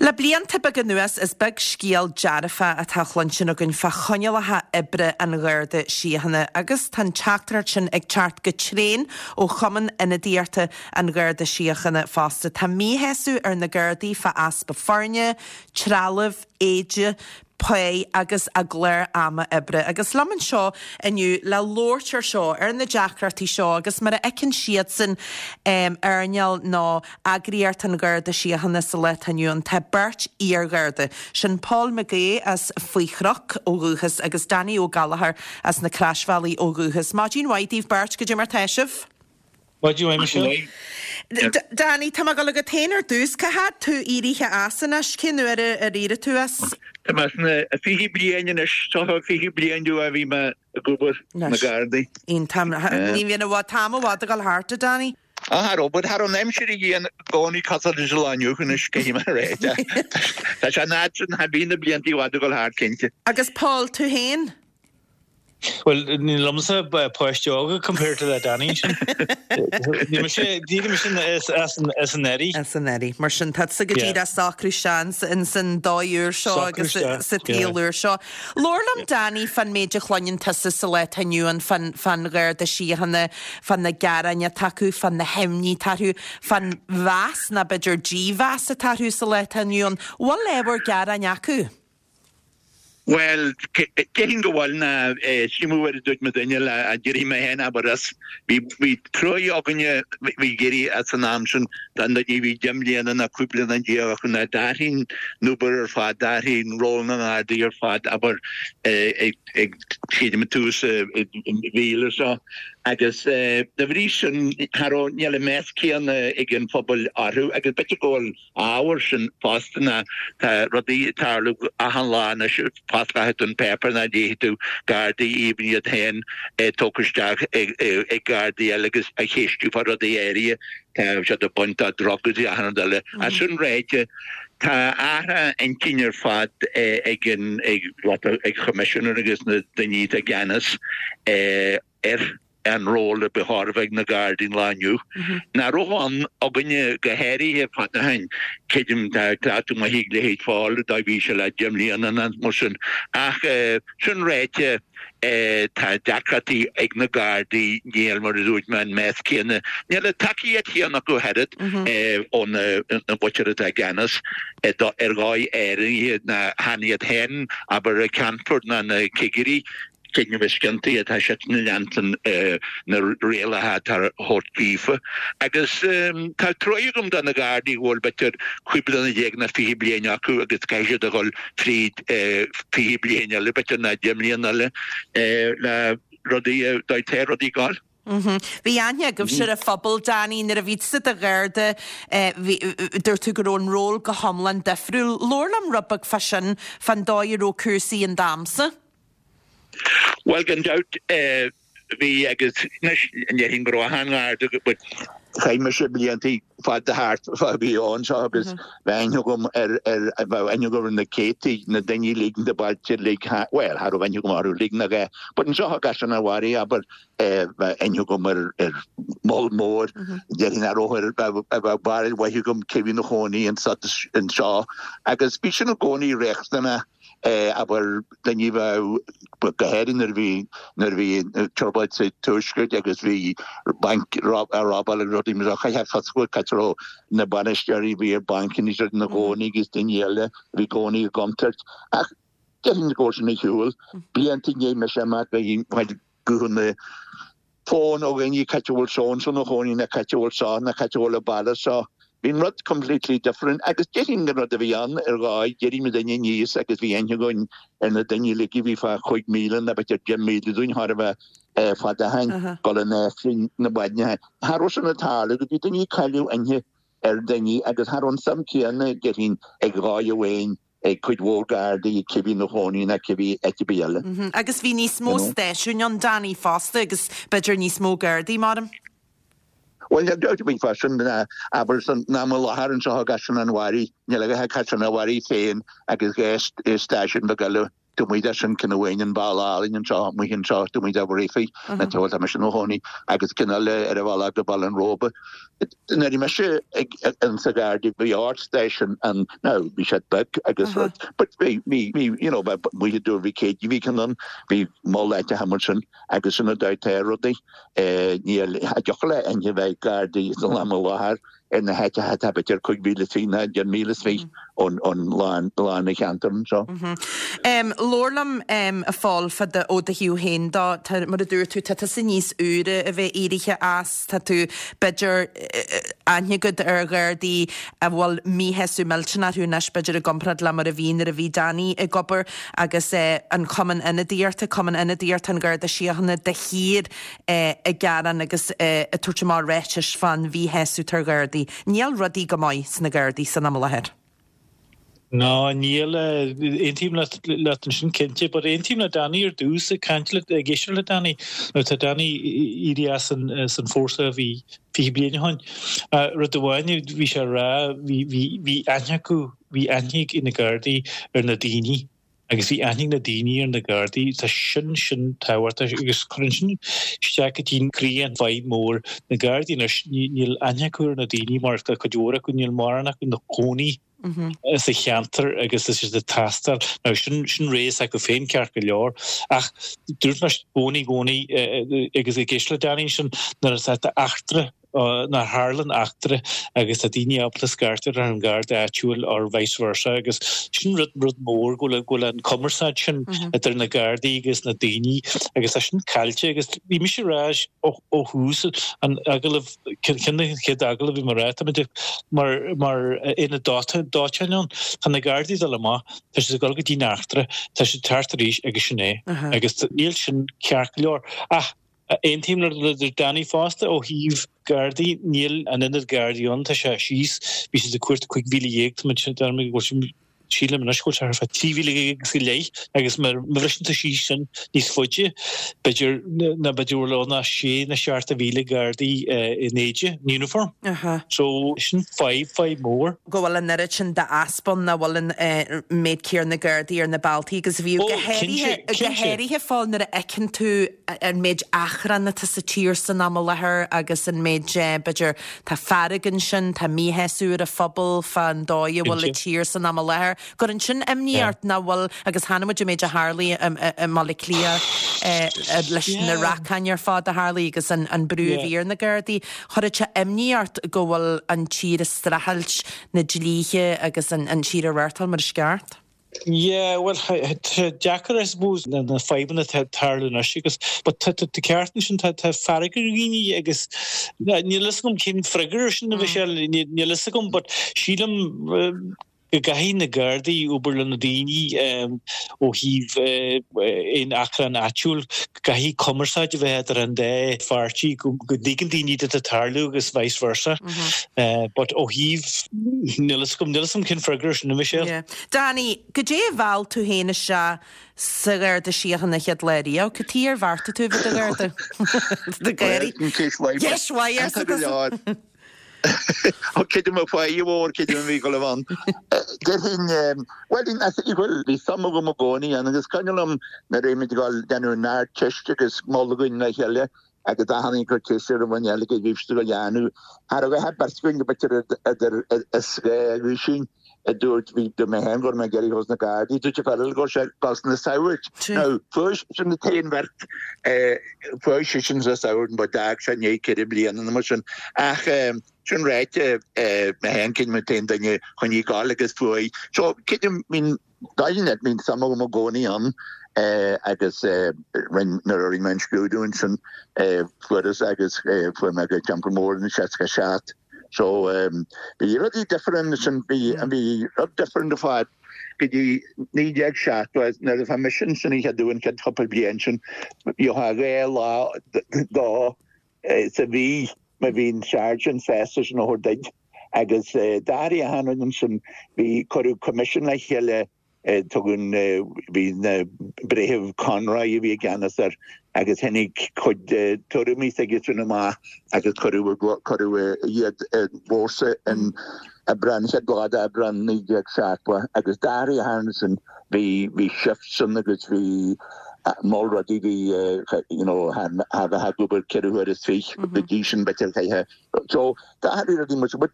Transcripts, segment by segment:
Le blianta beaga anuas is beag scéal dearfach atá á chluinstin againn fá choinníollacha oibre an Gharda Síochána agus tá an teachtaireacht sin ag teacht go tréan ó Chumann Ionadaíochta an Gharda Síochána fosta. Tá míshásamh ar na Gardaí fá easpa foirne, trealaimh, éide, pá agus a gclár ama oibre. Agus liom anseo inniu le labhairt ar seo, ar na deacrachtaí seo agus mar a fheiceann siadsan earnáil nó eagraíocht an Gharda Síochána sa lá atá inniu ann, tá beirt iar-Gharda, sin Paul McGee as Faoi Chnoc ó dhúchas agus Danny Ó Gallchóir as na Croisbhealaí ó dhúchas. Maidin mhaith daoibh beirt, goidé mar tá sibh? Maidin mhaith, Michelle. Danny, tá mé ag dul agat féin ar dtús. Cá fhad tú éirithe as anois? Cén uair ar éirigh tú as? Tá mé sna 20 bliain anois, seo 20 bliain ó a bhí mé ag obair sna Gardaí. Iontach. Ní bhíonn i bhfad, t-am i bhfad ag dul thart, a Danny. Ah, cha raibh, but cha raibh an aimsir a bhí i gcónaí cosúil leis an lá inniu anois, caithfidh mé a rá. Tá sé an fhad sin, bhí na blianta i bhfad ag dul thart, cinnte. Agus Paul, tú féin? Bhuel, níl liomsa páiste óga compared to le Danny sin. Níl mise, d'éirigh mise as an, as an Earraigh. As an Earraigh. Mar sin, tá tusa go díreach ag socrú isteach ins an dóigh úr seo agus sa tsaol úr seo. Labhair liom, Danny, fán méid a chluineann tusa sa lá atá inniu ann fán, fán Gharda Síochána, fá na gearáin atá acu, fá na himní atá orthu, fán mheas, nó b'fhéidir dímheas atá orthu sa lá atá inniu ann. Bhfuil ábhar gearáin acu? Bhuel, déarfainn go bhfuil ná sílim mar a dúirt mo dhuine le d'éirigh mé féin abair as. Bhí bhí truaí againne bhí ag éirí as an am sin don duine a bhí 10 mbliana ná 15 bliana acu ná d'athraigh an obair ar fad, d'athraigh an ról na nGardaí ar fad abair ag ag sílim ag tús an mhíle seo agus de bhrí sin cha raibh níl an meas céanna ag an phobal orthu agus b'fhéidir go bhfuil ábhar sin fosta ná tá rudaí ag tarlú achan lá anois, fosclaíonn tú an páipéar ná léifidh tú Gardaí even iad féin tógtha isteach ag Gardaí eile agus á cheistiú fá rudaí áirithe, tá siad ag baint de drugs agus achan rud eile. Ach sin ráite, tá athrú intinn ar fad ag an ag ag Choimisinéir agus na daoine atá i gceannas ar an ról a ba chóir a bheith ag na Gardaí an lá inniu. Nach raibh ann againne go háirithe fada ó shin, creidim tá cleachtadh maith ag leithéid Phóil dá bhí sé le 10 mbliana nó mar sin. Ach sin ráite, tá deacrachtaí ag na Gardaí, níl, mar a dúirt mé, an meas céanna, níl an tacaíocht chéanna acu ach oiread ó na muintir atá i gceannas ar dhóigh áirithe ná chan iad féin, abair, an Ceannfort ná na cigirí. Creidim is ciontaí atá siad ag leanstan na rialacha atá á thabhairt daofa. Agus tá truaí agam do na Gardaí go bhfuil b'fhéidir 15 bliana nó 20 bliain acu agus caithfidh siad a dhul fríd 20 bliain eile b'fhéidir nó 10 mbliana eile le rudaí, dá dtéadh rudaí ag gabháil. Bhí aithne agaibhse ar an phobal, Danny, nuair a bhí tusa i do Gharda, dúirt tú go raibh an ról go hiomlán difriúil. Labhair liom rud beag fá sin, fán dóigh a raibh cúrsaí in d'amsa. Bhuel, gan dabht, bhí agus anois déarfainn go raibh achan Gharda but chaith mise blianta fada thart fá bhí ann seo agus bheadh aithne agam ar ar bheadh aithne agam ar na céadtaí na daoine uilig na bailte uilig bhuel cha raibh aithne agam orthu uilig nach ea but anseo i gCaisleán an Bharraigh abair bheadh aithne agam ar ar moll mór déarfainn nach raibh ar bheadh bheadh barúil mhaith agam cé bhí ina chónaí anseo agus bhí sin i gcónaí riachtanach abair, daoine a bheadh, go háirithe nuair a bhí, nuair a bhí trioblóid sa Tuaisceart agus bhí bainc á robáil agus rudaí mar seo, chaithfeá fios a fháil cá raibh na bainisteoirí a bhí ar bancanna is ina gcónaí agus daoine eile a bhí i gcónaí i gcontúirt. Ach déarfainn go raibh sin ar shiúl. Blianta i ndiaidh mise imeacht bhí guthanna fón ó dhaoine cá háit a bhfuil so and so ina chónaí nó cá háit a bhfuil seo nó cá háit a bhfuil an baile seo. Bhí an rud completely different agus déarfainn an rud a bhí ann ar dhóigh, d'éirigh muid aníos agus bhí aithne againn ar na daoine uilig a bhí fá chúig mhíle nó b'fhéidir 10 míle dúinn chóir a bheith fada ó shin, dul in Aifreann na maidne. Cha raibh sin ag tarlú go bhí daoine ag cailleadh aithne ar daoine agus cha raibh an suim céanna déarfainn ag dhóigh amháin ag cuid mhór Gardaí cé bhí ina chónaí ná cé bhí áit ar bith eile. Agus bhí níos mó stáisiúin ann, Danny, fosta agus b'fhéidir níos mó Gardaí, maram. Bhuel, níl dabht ar bith fá sin, abair san am i láthair anseo i gCaisleán an Bharraigh, níl ach Caisleán an Bharraigh féin agus dhá stáisiún beag eile. Taobh amuigh de sin, ceann amháin an Bealach Álainn anseo, amuigh anseo, taobh amuigh de Bhréifinn, na tá mise i mo chónaí, agus ceann eile ar an bhealach go Baile an Róba. Nuair a bhí mise ag insa Gharda bhí ardstáisiún ann, now bhí siad beag agus rud, but bhí, bhí, bhí, you know, bheith amuigh i dTuar Mhic Éadaigh, bhí ceann ann, bhí mol áiteacha mar sin agus sin an dóigh atá rudaí. Níl, cha dtiocfadh le éinne bheith Gardaí san am i láthair ar na háiteacha atá b'fhéidir 5,000 is fiche ná 10,000 is fiche ón lán an cheantair anseo. Labhair liom, a Phóil, fá do, ó do thaobh féin dó. Tá, mar a dúirt tú, tá tusa níos úire a bheith éirithe as, tá tú, b'fhéidir, aithne agat ar Ghardaí a bhfuil míshásamh millteanach orthu anois, b'fhéidir, i gcomparáid le mar a bhí nuair a bhí Danny ag obair agus an Cumann Ionadaíochta, Cumann Ionadaíochta an Gharda Síochána de shíor ag gearán agus ag tabhairt amach ráitis fán mhíshásamh atá ar Ghardaí. Níl rudaí go maith sna Gardaí san am i láthair. Ná níl. Aontaím leat ansin cinnte. But aontaím le Danny ar dtús, ag caint le, ag éisteacht le Danny. Now tá Danny éirithe as an, as an fórsa a bhí 20 bliain ó shin. Rud amháin a bhí sé a rá, bhí, bhí, bhí aithne acu, bhí aithne ag na Gardaí ar na daoine. Agus bhí aithne ag na daoine ar na Gardaí, tá sin, sin tábhachtach agus cuireann sin isteach go dtí croí an fadhb mór. Na Gardaí anois, níl aithne acu ar na daoine mar tá cuid mhór acu, níl mórán acu ina gcónaí sa cheantar agus tá siad ag taisteal. Now sin, sin rogha s'acu féin ceart go leor ach dúirt mé i gcónaí, i gcónaí agus ag éisteacht le Danny ansin nuair atá eachtra nuair a tharlann eachtra agus tá daoine ábalta scairteadh ar an Gharda áitiúil or vice versa agus sin rud rud mór go bhfuil go bhfuil an cumarsáid sin idir na Gardaí agus na daoine agus tá sin caillte agus bhí mise ag rá ó ó thús an agallamh ceann de na chéad agallamh bhí mé ag rá táimid mar mar aonad dóiteáin ann tá na Gardaí ag dul amach tá siad ag dul go dtí an eachtra tá siad ag teacht arís agus sin é agus níl sin ceart go leor ach Aontaím le Danny fosta ó thaobh Gardaí, níl an oiread Gardaí ann, tá sé síos, bhí siad ag cuartú 15,000, tá muid, deirim go bhfuil, sílim anois go bhfuil sé thart fá 13,000 agus go leith agus má bhriseann tú síos sin níos faide, b'fhéidir, ná b'fhéidir go bhfuil ann ach sé nó 7,000 Gardaí in éide, in uniform. So sin fadhb, fadhb mhór. go bhfuil an oiread sin d'easpa ann, nach bhfuil an méid céanna Gardaí ar na bealtaí agus a bhíodh, go háirithe, go háirithe Phóil nuair a fheiceann tú an méid achrann atá sa tír san am i láthair agus an méid, b'fhéidir, tá fearg ansin, tá míshásamh ar an phobal fán dóigh a bhfuil an tír san am i láthair. Cuireann sin imní ort nach bhfuil, agus chonaic muid an méid a tharlaigh i mBaile Átha Cliath leis na racáin ar fad a tharlaigh agus an brú a bhí ar na Gardaí. Chuirfeadh sé imní ort go bhfuil an tír ag streachailt na dlíthe agus an tír a reáchtáil mar is ceart? Yeah, bhuel, tá sé deacair, I suppose, na fadhbanna atá ag tarlú anois agus, but tá tú ceart ansin, tá fearg ar dhaoine agus níl a fhios agam cén freagra ar sin, a Mhichelle, níl a fhios agam, but sílim go gcaithfidh na Gardaí obair le na daoine ó thaobh aon achrann áitiúil, go gcaithfidh cumarsáid a bheith idir an dá pháirtí, go dtuigeann daoine cad atá ag tarlú agus vice versa. But ó thaobh, níl a fhios agam, níl a fhios agam cén freagra ar sin, a Mhichelle. Yeah. Danny, goidé a mheall tú féin isteach sa Gharda Síochána an chéad lá riamh? Cad chuige ar bheartaigh tú a bheith i do Gharda? Do Ghardaí. Ceist mhaith. Ceist mhaith, arsa tusa. Ó creidim a fáidhe mhór, creidim a bhí go leibh ann. Déarfainn, bhuel, bhuel, bhí suim agam i gcónaí ann agus cuimhin liom nuair a bhí muid ag dul déanamh an Ardteist agus moladh againn le chéile agus achan duine ag cur ceist ar an dhuine eile cad a bhí siad ag dul a dhéanamh. Cha raibh a beirt againn go b'fhéidir idir is dhá aoisín a dúirt, bhí, dúirt mé féin go raibh mé ag iarraidh dul sna Gardaí, dúirt an fear eile go raibh sé ag dul sna Saghaird. Now, fuair sin an t-aon bheirt, fuair seisean sna Saghaird but d'fhág sé i ndiaidh ceithre bliana nó mar sin. Ach sin ráite, mé féin creidim an t-aon duine a choinnigh ag gabháil agus fuair. So, creidim, bíonn, dáiríre, bíonn suim agam i gcónaí ann agus rinn, nuair a rinne mé an scrúdú ansin, fuaireas agus fuair mé go Teampall Mór in 67. So bhí rudaí different ansin, bhí bhí rud different ar fad go dtí 1970 nuair a bhí mise ansin an chéad uair an chéad chúpla bliain sin gheofá dhá lá dó sa mhí má bhí an sergeant sásta sin a thabhairt duit agus d'athraigh achan rud ansin bhí cuireadh commission le chéile Tugann, bhí na Breitheamh Conroy a bhí i gceannas air agus tháinig cuid de tuairimí s'aigesean amach agus cuireadh, cuireadh iad i bhfórsa in. Aibreán, chéad lá d'Aibreán 1970 agus d'athraigh ansin, bhí, bhí shifts ann agus bhí moll rudaí, bhí you know cha bheifeá ag obair ceithre huaire is fiche go dtí sin b'fhéidir chaithfeá, so d'athraigh rudaí muid, but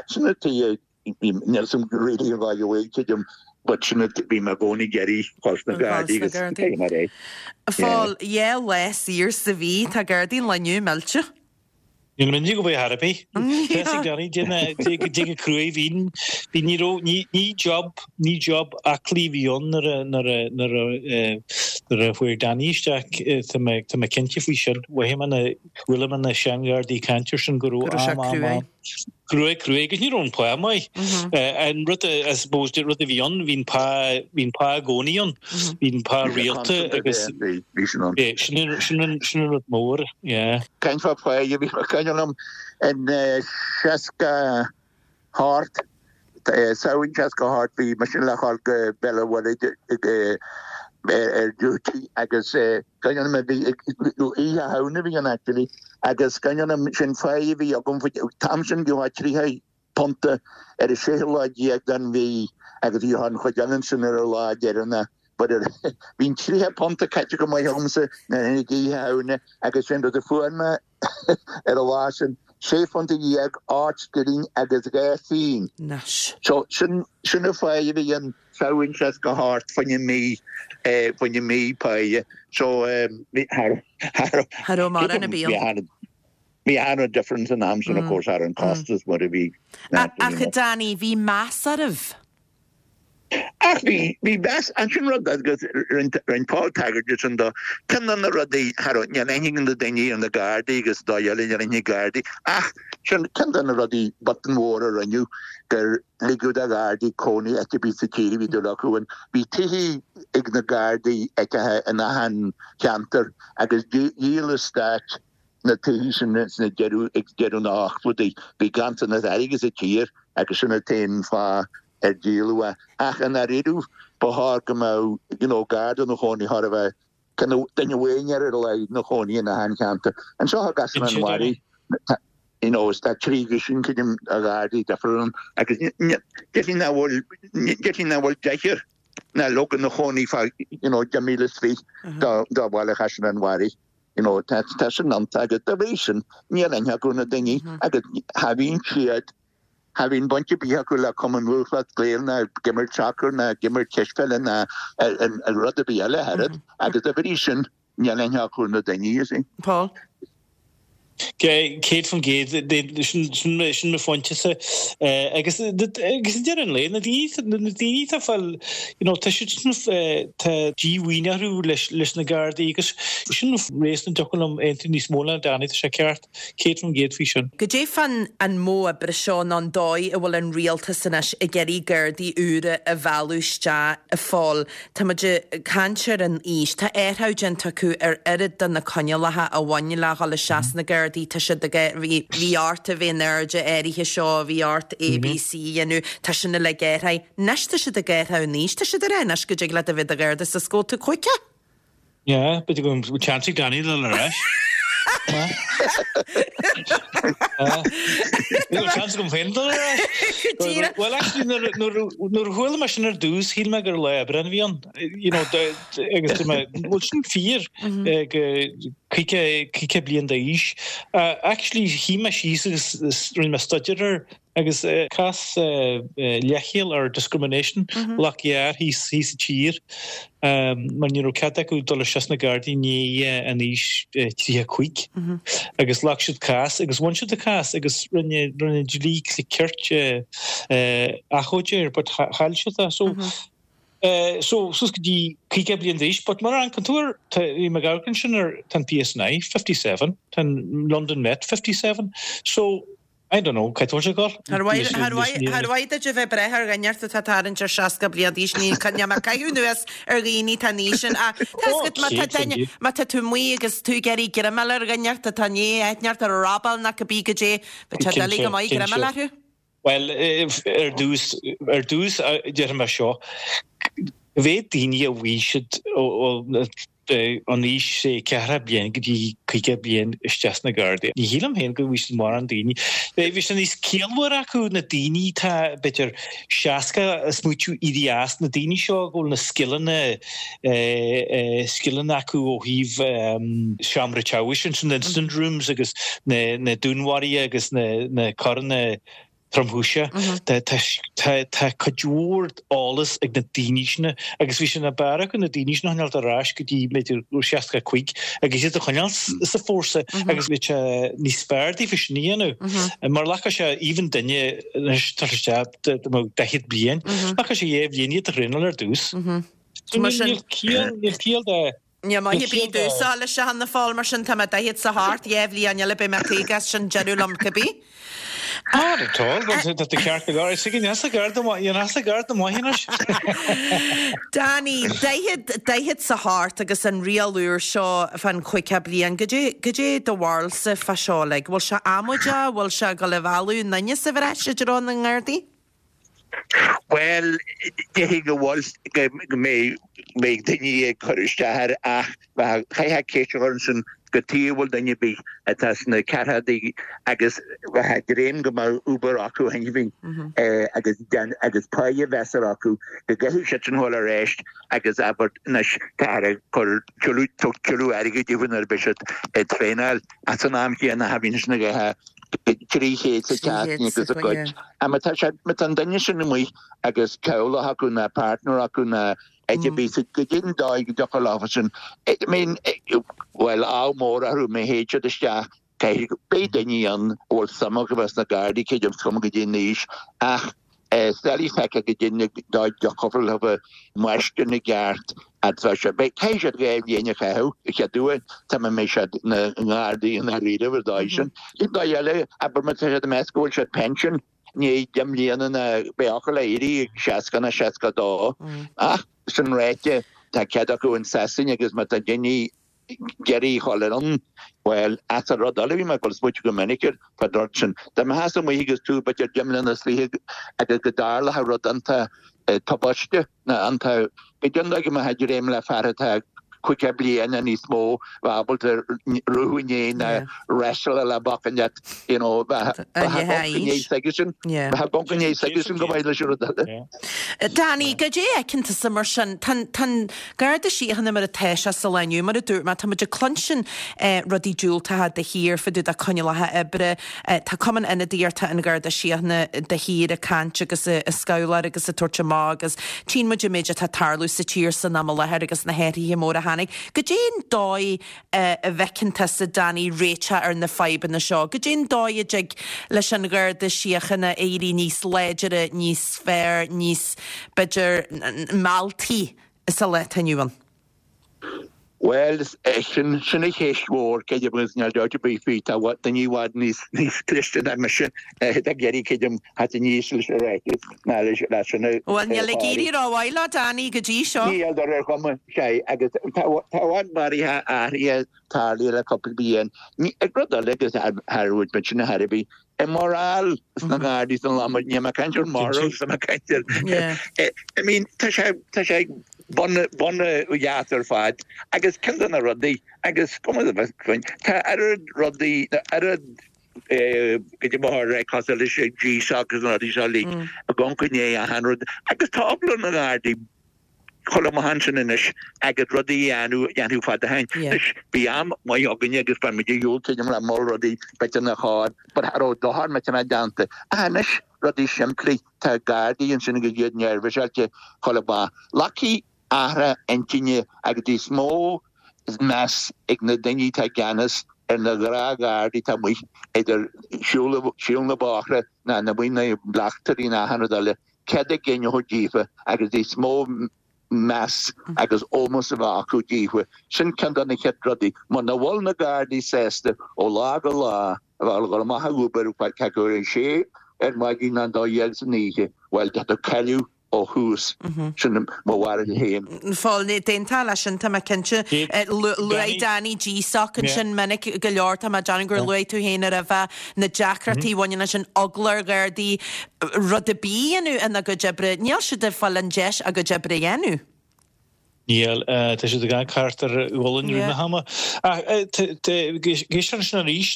sin an tuige, níl 'fhios a'm really an dóigh a bhfuil tuigim but sin an, bhí mé i gcónaí ag iarraidh dhul sna Gardaí agus cé mar é. Phól, dhá lá saor sa mhí, tá Gardaí an lae inniu millte. Níl mé go bhfuil thar ar bith. Tá ag Danny déan go cruaidh bhí bhí ní raibh ní ní job ní job aclaí a bhí ann nuair a nuair a nuair a nuair a fuair Danny isteach tá mé tá mé cinnte faoi sin. Mhothaigh mé na chuala mé na seanghardaí ag caint air sin go Go raibh raibh sé am am cruaidh. am cruaidh cruaidh agus ní raibh an pá maith. An rud a I suppose rud a bhí ann bhí an pá bhí an pá i gcónaí ann. Bhí an pá rialta agus bhí sin ann. Sin an sin an sin an rud mór yeah. Caint fá pháighe, bhí cuimhne liom in 68, Samhain 68, bhí mise le dhul go Béal an Mhuirthead ar duty agus cuimhne liom bhí Oíche Shamhna a bhí ann actually agus cuimhne liom sin pháighe a bhí agam, an t-am sin gheofá 30 punta ar an séú lá déag den mhí agus bhí an chuid eile ansin ar an lá deireanach but bhí an 30 punta caite go maith agamsa nuair a tháinig Oíche Shamhna agus sin rud a fuair mé ar an lá sin, sé phunta dhéag, 8 scilling agus 2 phingin. Anois. So sin sin an pháighe a bhí ann Samhain 68 fá choinne mí fá choinne mí páighe. So bhí cha raibh Cha raibh mórán ar bith ann. Bhí an-difference an am sin of course ar an costas mar a bhí. Ach a Danny, bhí meas oraibh. Ach bhí, bhí meas, ansin rud agus rinne Paul tagairt de sin do, ceann de na rudaí, cha raibh, níl aithne ag na daoine ar na Gardaí agus dóigh eile níl aithne ag Gardaí ach sin ceann de na rudaí botún mhór a rinneadh gur ligeadh do Ghardaí cónaí áit ar bith sa tír a bhí dúil acu ann. Bhí tithe ag na Gardaí áiteacha in achan cheantar agus dhíol an stát na tithe sin sna deireadh, ag deireadh na n-ochtóidí. Bhí ganntanas airgid sa tír agus sin an t-aon fáth ar díoladh é. Ach i ndáiríre, ba chóir go mbeadh, you know, Garda ina chónaí, chóir a bheith, kind of, duine amháin ar a laghad ina chónaí in achan cheantar. Anseo i gCaisleán an Bharraigh, tá, you know, tá trí dhuisín, creidim, de Ghardaí difriúil ann agus déarfainn nach bhfuil, déarfainn nach bhfuil deichniúr ná leoga ina chónaí fá, you know, 10,000 is fiche do bhaile Chaisleán an Bharraigh. You know, tá tá sin iontach agus dá bhrí sin níl aithne acu ar na daoine agus cha bhíonn siad, cha bhíonn baint ar bith acu le Cumann Lúthchleas Gael ná ag imirt sacair ná ag imirt cispheile ná rud ar bith eile ach oiread agus dá bhrí sin níl aithne acu ar na daoine, you see. Paul. 100%, sin mo phointe-sa. Agus ag deireadh an lae, na daoine atá ag fáil, you know, tá siad sin, tá díomhaoin orthu leis na Gardaí agus sin réasún a dtiocfadh liom aontú níos mó le Danny, tá sé ceart, 100% faoi sin. Goidé fán an modh oibre seo nó an dóigh a bhfuil an rialtas anois ag iarraidh Gardaí úra a mhealladh isteach, a Phóil? Tá muid ag caint ar an aois. Tá athrú déanta acu ar oiread de na coinníollacha a bhain le dhul isteach sna Gardaí. Tá siad ag, bhí, bhí ort a bheith in airde áirithe seo, bhí ort A, B, C a dhéanamh. Tá sin uilig athraithe. Anois tá siad ag athrú an aois. Tá siad ag rá anois go dtig leat a bheith i do Gharda is go bhfuil tú 50. Yeah, b'fhéidir go bhfuil chance ag Danny dul ar ais. Níl chance agam féin dul ar ais. Well, actually, nuair a chuala mé sin ar dtús, shíl mé gur lá Aibreáin a bhí ann. You know, agus dúirt mé, bhfuil sin fíor go 50 bliain d'aois. Actually, shuigh mé síos agus rinne mé staidéar air Agus cás leithcheal or discrimination ghlac gearr thíos sa tír mar ní raibh cead acu dul isteach sna Gardaí i ndiaidh an aois 35 agus ghlac siad cás agus bhain siad an cás agus rinne rinne dlí cirt achomharc air but chaill siad é so so suas go dtí 50 bliain d'aois but mar an tú tá bhí mé ag amharc ansin ar tá an PSNI 57 tá an London Met 57 so I don't know, caithfidh tú a ghoil. Char mhaith duit a bheith ag breith ar dhuine atá ag tarraingt ar 60 bliain d'aois, níl mé ag caitheamh anuas ar dhaoine atá an aois sin ach tá 'fhios agat má tá duine, má tá tú amuigh agus tú ag iarraidh greamáil ar dhuine atá i ndiaidh aithne ort ar robáil nó cibé goidé, bheadh sé doiligh go maith greamáil orthu. Bhuel, ar dtús, ar dtús déarfaidh mé seo, bheadh daoine a bhí siad ó. An aois sé 40 bliain go dtí 50 bliain isteach sna Gardaí. Ní shílim féin go bhfuil siad mórán daoine. Bheadh sé níos ciallmhar acu na daoine atá b'fhéidir 60 a smaoitiú éirí as, na daoine seo go bhfuil na scileanna scileanna acu ó thaobh seomra teagmhais ansin, na incident rooms agus na dúnmharuithe agus na coireanna tromchúiseacha. Tá cuid mhór eolas ag na daoine sin agus bhí sé ní b'fhearr acu na daoine sin a choinneáilt ar ais go dtí b'fhéidir 65 agus iad a choinneáil sa fórsa agus bhí sé níos fearr daofa sin a dhéanamh. Mar ghlacfadh sé even duine anois tá isteach 40 bliain, ghlacfadh sé 2 bhliain iad a thraenáil ar dtús. Níl ciall de Níl maith ar bith domhsa leis a Phóil, mar sin tá mé 48, 2 bhliain eile beidh mé 50 is sin deireadh liom cibé. Not at all, tá tú ceart go leor. Is ag an easa garda maith, an easa garda maith anois. Danny, 48 agus an riail úr seo fán 50 bliain, goidé, goidé do bharúilsa fá seo, like, bhfuil sé amaideach, bhfuil sé ag dul a mhealladh na ndaoine sa bhreis i dtreo na nGardaí? Bhuel, déarfainn go bhfuil, go mbeidh daoine ag cur isteach air ach chaithfeá ceist a chur ansin cad chuige a bhfuil duine ar bith atá sna ceathrachaidí agus bheadh ag dréim go mbeadh obair acu cheana féin agus agus páighe mheasartha acu go gcaithfidh siad sin dhul ar ais agus abair anois táthar ag cur tuilleadh tuilleadh airgid daofa nuair a bheidh siad ag traenáil ach san am chéanna cha bhíonn sin ag ithe 300 sa tseachtain agus a gcuid. Má tá sé, má tá an duine sin amuigh agus teaghlach acu ná partner acu ná áit ar bith, goidé an dóigh go dtiocfadh leofa sin, I mean, bhuel, ádh mór orthu má théid siad isteach, caithfidh, beidh daoine ann a bhfuil suim acu bheith sna Gardaí, creidim, is cuma goidé an aois, ach Is doiligh feiceáil goidé an dóigh a dtiocfadh leofa máistir na gceart atá sé. Beidh, caithfidh siad 2 bhliain a chaitheamh, a chéad uair, tá mé mbeidh siad ina nGardaí i ndáiríribh ar dóigh sin. An dóigh eile, abair má tá siad ag meas go bhfuil siad pension i ndiaidh 10 mbliana ná beidh acu le éirí ag 60 ná 62. Ach sin ráite, tá cead acu in Sasain agus má tá daoine ag iarraidh a dhul ann, bhuel, as an rud eile, bhí mé ag dul ag smaoitiú go minic air fán rud sin. Dá mbeifeása amuigh agus tú b'fhéidir 10 mbliana is fiche agus go dtarlódh rud iontach tubaiste nó iontach, goidé an dóigh go mbeifeá ag dréim le fear atá 50 bliain nó níos mó bheith ábalta ruathadh i ndiaidh nó wrestleáil le bacainn leat, you know, bheith ag gonc i ndiaidh s'aigesean, bheith ag gonc i ndiaidh s'aigesean go maith leis an rud eile. Danny, goidé a fheiceann tusa mar sin? Tá an Garda Síochána mar atá sé sa lá inniu, mar a dúirt mé, tá muid ag cluinstin rudaí diúltacha de shíor fá dtaobh de coinníollacha oibre. Tá Cumann Ionadaíochta an Gharda Síochána de shíor ag caint agus ag scabhláir agus ag tabhairt amach agus tchíonn muid an méid atá ag tarlú sa tír san am i láthair agus na hathruithe móra a tháinig. Goidé an dóigh a bhfeiceann tusa, Danny, réiteach ar na fadhbanna seo? Goidé an dóigh a dtig leis an Gharda Síochána éirí níos láidire, níos fearr, níos, b'fhéidir, mealltaí sa lá atá inniu ann? Bhuel, sin, sin an cheist mhór, creidim, agus níl dabht ar bith faoi, tá daoine i bhfad níos, níos cliste ná mise ag iarraidh, creidim, theacht aníos leis an ráiteas ná leis, leis sin a Bhuel, níl ag éirí rómhaith leo, Danny, go dtí seo. Níl, ar ar chuma, sea, agus tá, tá i bhfad maraithe athraithe tarlaithe le cúpla bliain. Ní, rud eile agus thar rud muid sin a thairbhí, i morale sna Gardaí san lá, níl mé ag caint ar morals, tá mé ag caint ar, I mean, tá sé, tá sé bun, bun dheas ar fad agus ceann de na rudaí agus cuma tá oiread rudaí, oiread goidé mar cosúil leis an GSOC agus na rudaí seo uilig ag amharc i ndiaidh achan rud agus tá eagla ar na Gardaí dhul amach ansin anois agus rudaí a dhéanamh a dhéanfadh fad ó shin. Anois, bhí am maith againne agus bhain muid ar shiúl creidim le mol rudaí b'fhéidir nach chóir but cha raibh dochar millteanach déanta. Ach anois, rudaí simplí, tá Gardaí ansin agus iad neirbhíseáilte dhul amach. Glacfaidh athrú intinne agus níos mó meas ag na daoine atá i gceannas ar na gnáth-Ghardaí atá amuigh idir siúl na bóithre ná na amuigh na bleachtairí ná achan rud eile. Cead a gcinn a thabhairt daofa agus níos mó meas agus ómós a bheith acu daofa. Sin ceann de na chéad rudaí. Muna bhfuil na Gardaí sásta ó lá go lá a bheith ag dul amach ag obair cé acu ar a sé ar maidin nó 12 san oíche, bhuel, tá tú ag cailleadh ó thús. Sin mo bharúil féin. Phóil, d'aontófá leis sin, tá mé cinnte. Luaigh Danny GSOC ansin minic go leor, tá mé ag déanamh gur luaigh tú féin roimhe na deacrachtaí a bhaineann leis an eagla ar Ghardaí rud ar bith a dhéanamh ina gcuid oibre. Níl siad ag fáil an deis a gcuid oibre a dhéanamh. Níl. Tá siad ag amharc thart ar a ghualainn i rith na hama. Ach ag éisteacht ansin arís,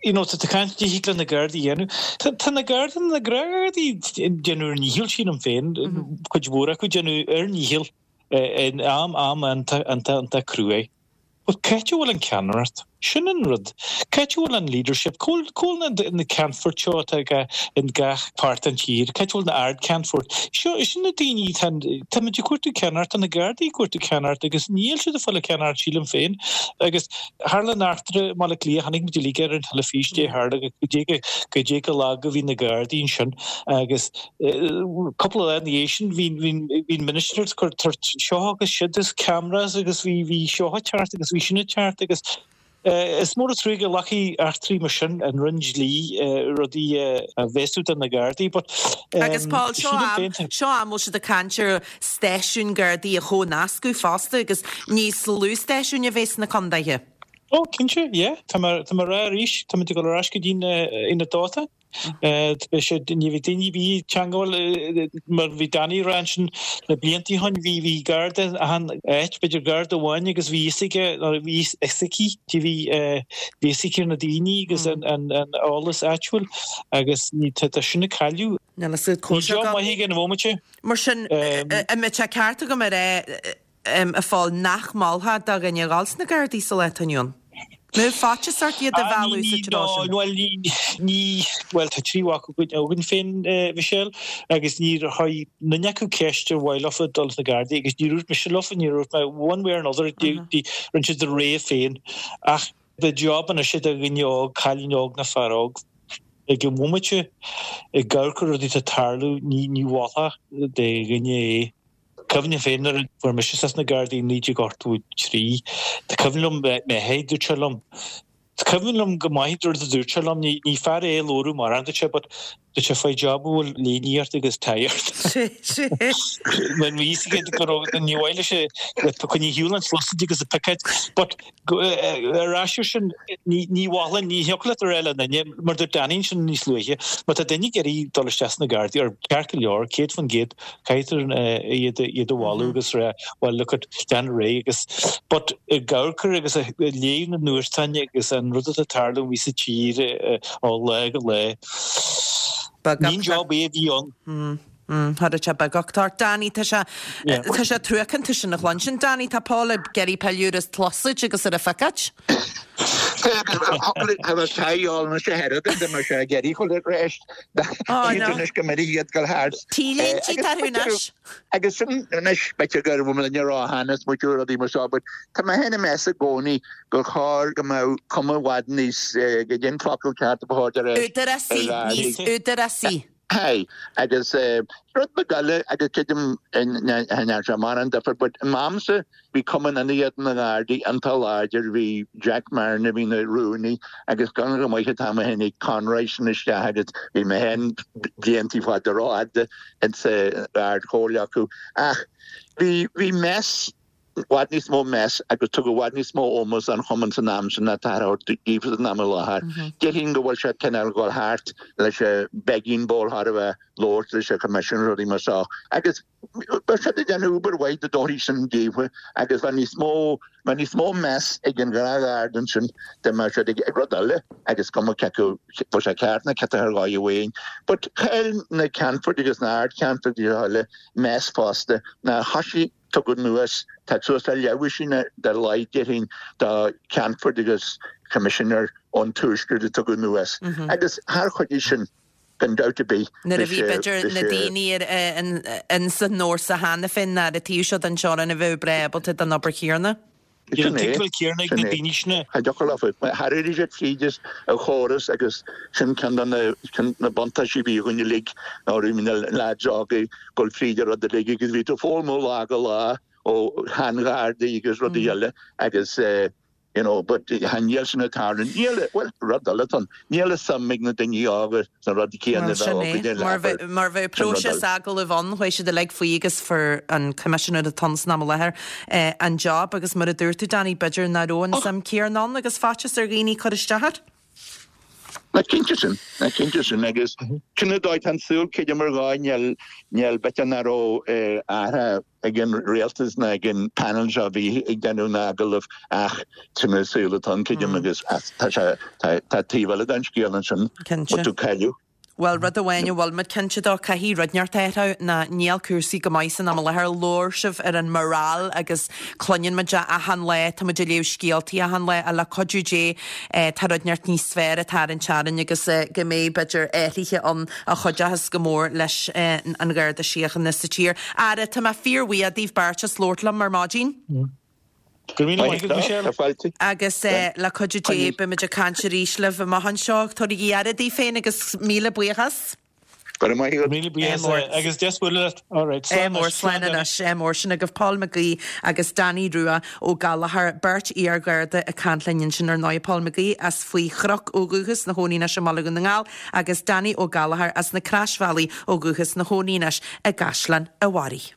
you know, tá tú ag caint dtig le na Gardaí a dhéanamh. Tá na Gardaí, na Gardaí ag déanamh ar ndícheall, sílim féin, cuid mhór acu ag déanamh ar ndícheall in am, am iontach, iontach, iontach cruaidh. But c'áit a bhfuil an ceannaireacht? Sin an rud. C'áit a bhfuil an leadership? Cá bhfuil, cá bhfuil na ceannfoirt seo atá in gach páirt den tír? C'áit a bhfuil na ardcheannfoirt? Seo, sin na daoine, tá, táimid ag cuartú ceannaireacht, tá na Gardaí ag cuartú ceannaireacht agus níl siad ag fáil an ceannaireacht sílim féin. Agus tharla an eachtra i mBaile Átha Cliath, chonaic muid uilig ar an teilifís, dé tharla, go dté go, go dté go lag a bhí na Gardaí ansin agus, Cúpla lá ina dhiaidh sin bhí an minister ag cur seo agus siúd agus cameras agus bhí bhí seo ag teacht agus bhí sin ag teacht agus is mór an trua go nglacfaidh eachtraí mar sin an Roinn Dlí rudaí a bhéasú do na Gardaí but Agus Paul, seo am, seo am bhfuil siad ag caint ar stáisiúin Gardaí a chomhnascadh fosta agus níos lú stáisiúin a bheith sna condaetha. Ó cinnte, yeah, tá mé tá mé ag rá arís, táimid ag dul ar ais go dtí an ionad dóiteáin. Beidh sé, ní bheidh daoine ar bith ag teangmháil mar bhí Danny ag rá ansin na blianta ó shin, bhí, bhí garda achan áit, b'fhéidir garda amháin agus bhí fhios aige, nó bhí fhios aici, bhí, bhí fhios aici ar na daoine agus an, an, an eolas áitiúil agus ní, tá, tá sin ag cailleadh. Níl fhios agat Níl job maith aige an bhomaite. Mar sin, an mbeadh sé ceart agam a rá, a Phóil, nach molfá do dhuine a dhul sna Gardaí sa lá atá inniu ann? Mbeadh faitíos ort iad a mhealladh sa treo sin? Bhuel, ní, bhuel, tá triúr mhac againn féin, Michelle, agus níor chuir duine acu ceist ar mhaith leofa dul sna Gardaí agus níor dhúirt mise leofa, níor dhúirt mé one way or another, rinne siad a rogha féin. Ach beidh job anois do dhuine óg, cailín óg nó fear óg, ag an bhomaite, ag amharc ar rudaí atá ag tarlú, ní mholfá do dhuine é. Cuimhním féin nuair a fuair mise isteach sna Gardaí i 1983, tá cuimhin liom m'athair, dúirt sé liom, tá cuimhin liom go maith rud a dúirt sé liom, ní fear é a labhradh mórán, dúirt sé, but dúirt sé, faigh job a bhfuil léine ort agus tie ort. Mar bhí fhios aige go raibh, ní mhaith leis é, coinnigh ar shiúl an tsliosaid agus an picéad, but Ar ais ar sin, ní mholfainn, ní thiocfadh leat a rá le duine, mar dúirt Danny ansin níos luaithe, má tá duine ag iarraidh dul isteach sna Gardaí, ar ceart go leor, 100%, caithfidh iad a mholadh agus rá, well look at, déan ar aghaidh agus, but ag amharc ar agus ag léamh na nuachtáin agus an rud atá ag tarlú amuigh sa tír ó lá go lá, ní an job é a bhí ann. Tharla sé beag ort. Danny, tá sé, tá sé truacánta sin a chluinstin. Danny, tá Paul ag iarraidh pilleadh ar an tsliosaid agus ar an phicéad. Tá sé anois a Sheiridan, tá sé ag iarraidh chuile réist. Anois go mbeidh iad go thart. T-léinte atá orthu anois. Agus sin anois b'fhéidir go raibh muid ag rá cheana is muid rudaí mar seo, but tá mé féin ag meas i gcónaí gur chóir go mbeadh cuma i bhfad níos, go dtí an focal ceart a ba chóir de réir. Údarásaí, níos údarásaí. Aye, agus rud beag eile, agus creidim cha ndearna sé mórán difear, but in m'amsa bhí Cumann Ionadaíochta na nGardaí iontach láidir, bhí Jack Marron a bhí ina rúnaí agus gan go maith atá mé féin ag Conroy sin isteach agus bhí mé féin bliantaí fada rófhada insa Ard-Chomhairle acu ach bhí, bhí meas i bhfad níos mó meas agus tugadh i bhfad níos mó ómós don chumann san am sin ná atá á thabhairt daofa san am i láthair. Déarfainn go bhfuil sé cineál dhul thart leis an begging bowl thar a bheith labhairt leis an Choimisiún rudaí mar seo agus bheadh siad ag déanamh obair mhaith dá dtabharfaí sin daofa agus bheadh níos mó bheadh níos mó meas ag an ghnáthgharda ansin dá mbeadh siad ag rud eile agus cuma cé acu bhfuil sé ceart nó ciotach ar dhóigh amháin but chaill na Ceannfoirt agus na Ardcheannfoirt agus eile meas fosta ná thoisigh Tugadh anuas, tá suas le leathdhosaen ar a laghad déarfainn de Cheannfoirt agus Choimisinéir ón Tuaisceart a tugadh anuas agus char chuidigh sin gan dabht ar bith Nuair a bhí b'fhéidir na daoine in san fhórsa cheana féin ar an taobh seo den teorainn a bheadh breá ábalta don obair chéanna. Sin é. Tuigbheáil céanna ag na daoine sin. Cha dtiocfadh leofa. Tharraing siad tríd an chóras agus sin ceann de na buntáistí a bhí againn uilig ná raibh na leaids óga ag dul fríd an rud uilig agus bhí tú ag foghlaim ó lá go lá ó shean-ghardaí agus rudaí eile agus you know but níl sin ag tarlú. Níl, bhuel rud eile atá ann, níl a suim ag na daoine óga sna rudaí céanna a bheadh againne le Mar mar bheadh próiseas agallaimh ann, chuaigh siad uilig faoi agus fuair an coimisinéir atá ann san am i láthair an job agus mar a dúirt tú Danny, b'fhéidir nach raibh an suim céanna ann agus faitíos ar dhaoine cur isteach air. Ná cinnte sin, ná cinnte sin agus sin an dóigh tá an saol creidim ar dhóigh níl níl b'fhéidir nach raibh athrá ag an rialtas ná ag an panel seo a bhí ag déanamh na n-agallamh ach sin an saol atá ann creidim agus tá sé tá tá taobh eile den scéal ansin Cinnte. tú cailleadh. Bhuel, rud amháin a bhfuil muid cinnte dó, caithfidh rud inteacht athrú ná níl cúrsaí go maith san am i láthair. Labhair sibh ar an morale agus cluineann muid é achan lá, tá muid ag léamh scéaltaí achan lá ach le cuidiú Dé tá rud inteacht níos fearr ag tarraingt orainn agus go mbeidh b'fhéidir athruithe ann a chuideochas go mór leis an Gharda Síochána sa tír. Ara, tá mé fíor-bhuíoch daoibh beirt as labhairt liom ar maidin. Go raibh míle maith agat, Michelle. Agus le cuidiú Dé, beimid ag caint arís libh amach anseo. Tabhairigí aire daoibh féin agus míle buíochas. Go raibh maith agat. Míle buíochas agus deas bualadh leat. All right, slán anois. Slán anois. Ádh mór. Sin agaibh Paul McGee agus Danny Rua Ó Gallchóir, beirt iar-Gharda ag caint linn ansin ar ndóigh. Paul McGee as Faoi Chnoc ó dhúchas, ina chónaí anois i mBaile Dhún na nGall agus Danny Ó Gallchóir as na Croisbhealaí ó dhúchas, ina chónaí anois i gCaisleán an Bharraigh.